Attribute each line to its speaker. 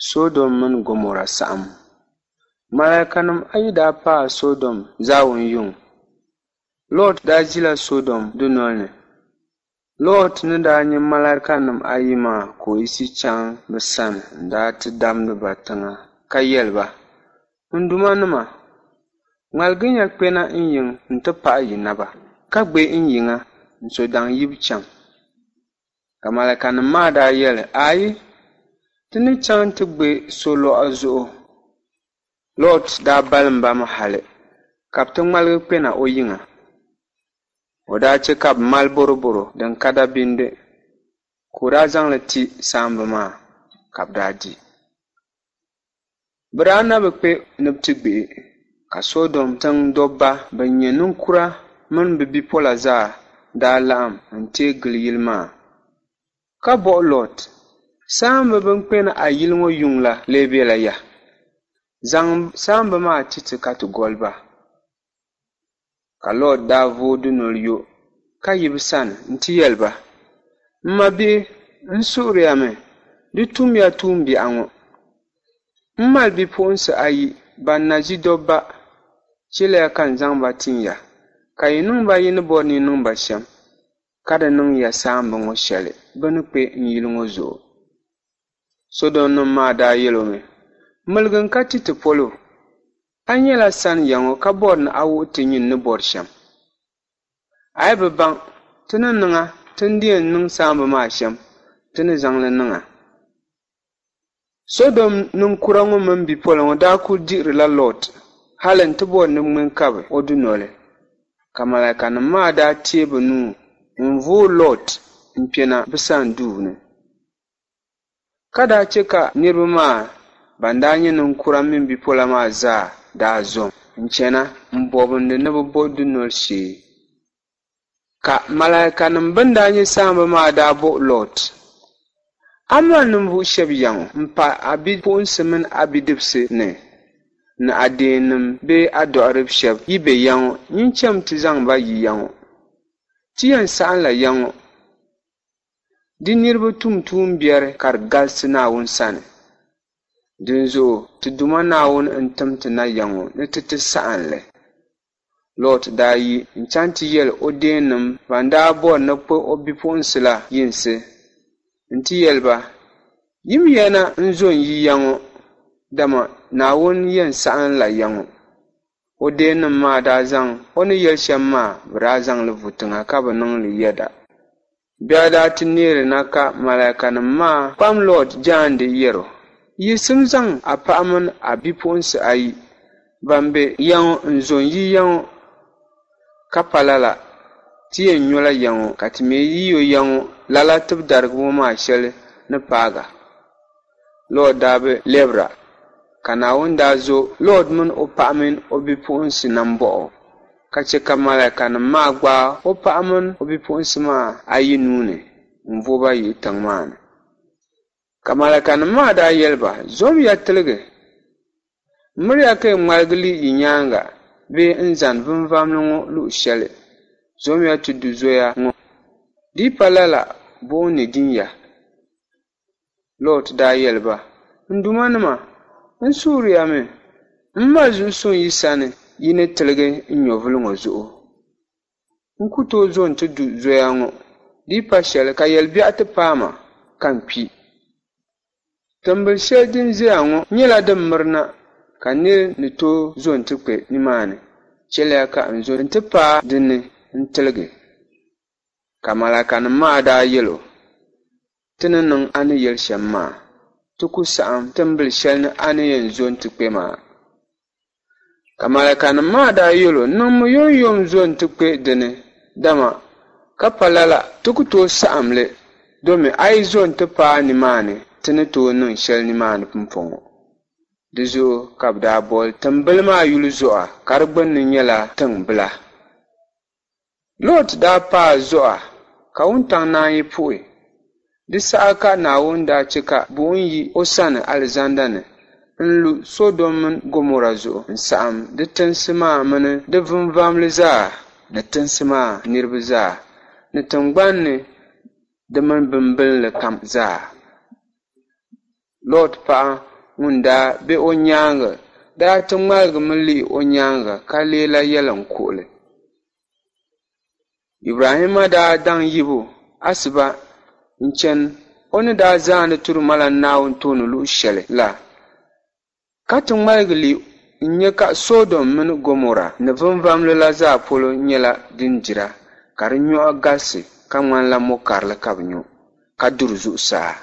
Speaker 1: Sodom mini Gomɔra saɣim. Malaikanim ayi daa paai Sodom zaawun yuŋ. Lɔt daa ʒila Sodom dunol ni. Lɔt ni daa nya malaikanim ayi maa ka o yiɣisi chaŋ bɛ sani n-daa ti damdi ba tiŋa ka yɛli ba, N duumanima, ŋmaligiya kpɛna n yiŋ nti paɣi yi naba, ka gbe n yiŋa n-so daŋ yibu chaŋ. Ka malaikanim maa daa yɛli, Aai, ti ni chaŋ ti gbe solɔɣu zuɣu. Lɔt daa balim ba mi hali ka bɛ ti ŋmaligi kpɛna o yiŋa. O daa chɛ ka bɛ mali bɔrɔbɔro din ka dabindi, ka o daa zaŋ li ti saamba maa ka bɛ daa di. Bɛ daa na bi kpe ni bɛ ti gbihi, ka Sodom tiŋ dɔbba bɛn nyɛ ninkura mini bɛ bipola zaa daa laɣim n-teei gili yili maa. Ka bɔhi Lɔt, Saamba bɛn kpɛna a yili ŋɔ yuŋ la lee bela ya? Zaŋm saamba maa ti ti ka ti goli ba. Ka Lɔt daa vooi dunoli yo ka yi bɛ sani nti yɛli ba, M mabihi, n suhiriya mi, di tumya tuumbiɛɣu ŋɔ. M mali bipuɣinsi ayi ban na ʒi dɔbba, chɛliya ka n zaŋ ba tin ya, ka yi niŋ ba yi ni bɔri ni yi niŋ ba shɛm. Ka di niŋ ya saamba ŋɔ shɛli bɛ ni kpe n yili ŋɔ zuɣu. Sɔdomnim maa daa yɛl o mi, Miligi n-ka ti ti polo. A nyɛla sani ya ŋɔ ka bɔri ni a wuhi ti nyin ni bɔri shɛm. A yi bi baŋ, ti ni niŋ a ti ni di yɛn niŋ saamba maa shɛm, ti ni zaŋ li niŋ a. Sodom ninkura ŋɔ mini bipola ŋɔ daa kul dihirila Lɔt hal nti bɔri ni bɛ ŋme n-kabi o dunoli. Ka malaikanim maa daa teei bɛ nuu n-vooi Lɔt n-kpɛna bɛ sani duu ni, ka daa chɛ ka niriba maa ban daa nyɛ ninkura mini bipola maa zaa daa zom n-chana m-bɔbindi ni bɛ bo dunoli shee. Ka malaikanim bɛn daa nyɛ saamba maa daa bɔhi Lɔt, A mali ninvuɣ shɛb ya ŋɔ m-pah a bipuɣinsi mini a bidibisi ni ni a deennim bee a dɔɣirib shɛb yi be ya ŋɔ, nyin cham ti zaŋ ba yi ya ŋɔ. Ti yɛn saɣimla ya ŋɔ di niriba tum tuumbiɛri ka di galisi Naawuni sani. Dinzuɣu ti Duuma Naawuni n-tim ti na ya ŋɔ ni ti ti saɣim li. Lɔt daa yi n-chaŋ ti yɛl o deennim ban daa bɔri ni bɛ kpuɣ o bipuɣinsi la yinsi nti yɛli ba, Yimiya na n-zo n-yi ya ŋɔ, dama Naawuni yɛn saɣimla ya ŋɔ. O deennim maa daa zaŋ o ni yɛli shɛm maa, bɛ daa zaŋ li vu tiŋa ka bi niŋ li yɛda. Biɛɣu daa ti neeri na ka malaikanim maa kpam Lɔt jaande yɛr o, Yiɣisim zaŋ a paɣa min a bipuɣinsi ayi ban be ya ŋɔ n-zo n-yi ya ŋɔ, ka pa lala, ti yɛn nyola ya ŋɔ, ka ti mi yi yo ya ŋɔ lala tibidarigibo maa shɛli ni paag a. Lɔt daa bi lɛbira, ka Naawuni daa zo Lɔt min o paɣa min o bipuɣinsi nambɔɣu, ka chɛ ka malaikanim maa gbaag o paɣa min o bipuɣinsi maa ayi nuu ni n-vo ba yihi tiŋ maa ni. Ka malaikanim maa daa yɛli ba, Zomiya tiligi! Miriya ka yi ŋmaligi lihi yi nyaaŋa bee n-zani vinvamli ŋɔ luɣ shɛli. Zomiya ti du zoya ŋɔ, di yi pa lala buɣim ni din ya. Lɔt daa yɛli ba, N duumanima, n suhiriya mi, m mali zuɣusuŋ yi sani yi ni tiligi n nyɛvili ŋɔ zuɣu. N ku tooi zo nti du zoya ŋɔ, di yi pa shɛli ka yɛlibiɛɣu ti paai ma ka n kpi. Timbil shɛli din ʒiya ŋɔ nyɛla din mirina ka nir ni tooi zo nti kpe nimaani. Chɛliya ka n zo nti paai di ni n-tiligi. Ka malaikanim maa daa yɛl o, Ti ni niŋ a ni yɛli shɛm maa, ti ku saɣim timbil shɛli ni a ni yɛn zo nti kpe maa. Ka malaikanim maa daa yɛl o, Niŋmi yomyom zo nti kpe di ni, dama ka pa lala ti ku tooi saɣim li, domi a yi zo nti paai nimaani ti ni tooi niŋ shɛli nimaani pumpɔŋɔ. Di zuɣu ka bɛ daa boli timbili maa yuli Zɔa, ka di gbinni nyɛla Tiŋ Bila. Lɔt daa paai Zɔa ka wuntaŋ naanyi puhi. Di saha ka Naawuni daa chɛ ka buɣim yi o sani alizanda ni n-lu Sɔdom mini Gomɔra zuɣu n-saɣim di tinsi maa mini di vinvamli zaa ni tinsi maa niriba zaa ni tiŋgbani ni di mini bimbilinli kam zaa. Lɔt paɣa ŋun daa be o nyaaŋa daa ti ŋmaligimi lihi o nyaaŋa ka leela yɛliŋkuɣili. Ibrahimma daa daŋ yibu asiba n-chani o ni daa zaandi Turumalan Naawuni tooni luɣ shɛli la, ka ti ŋmaligi lihi n-nya ka Sɔdom mini Gomɔra ni vinvamli la zaa polo nyɛla din dira, ka di nyɔhi galisi ka ŋmanila mɔ karili ka bɛ nyo, ka duri zuɣusaa.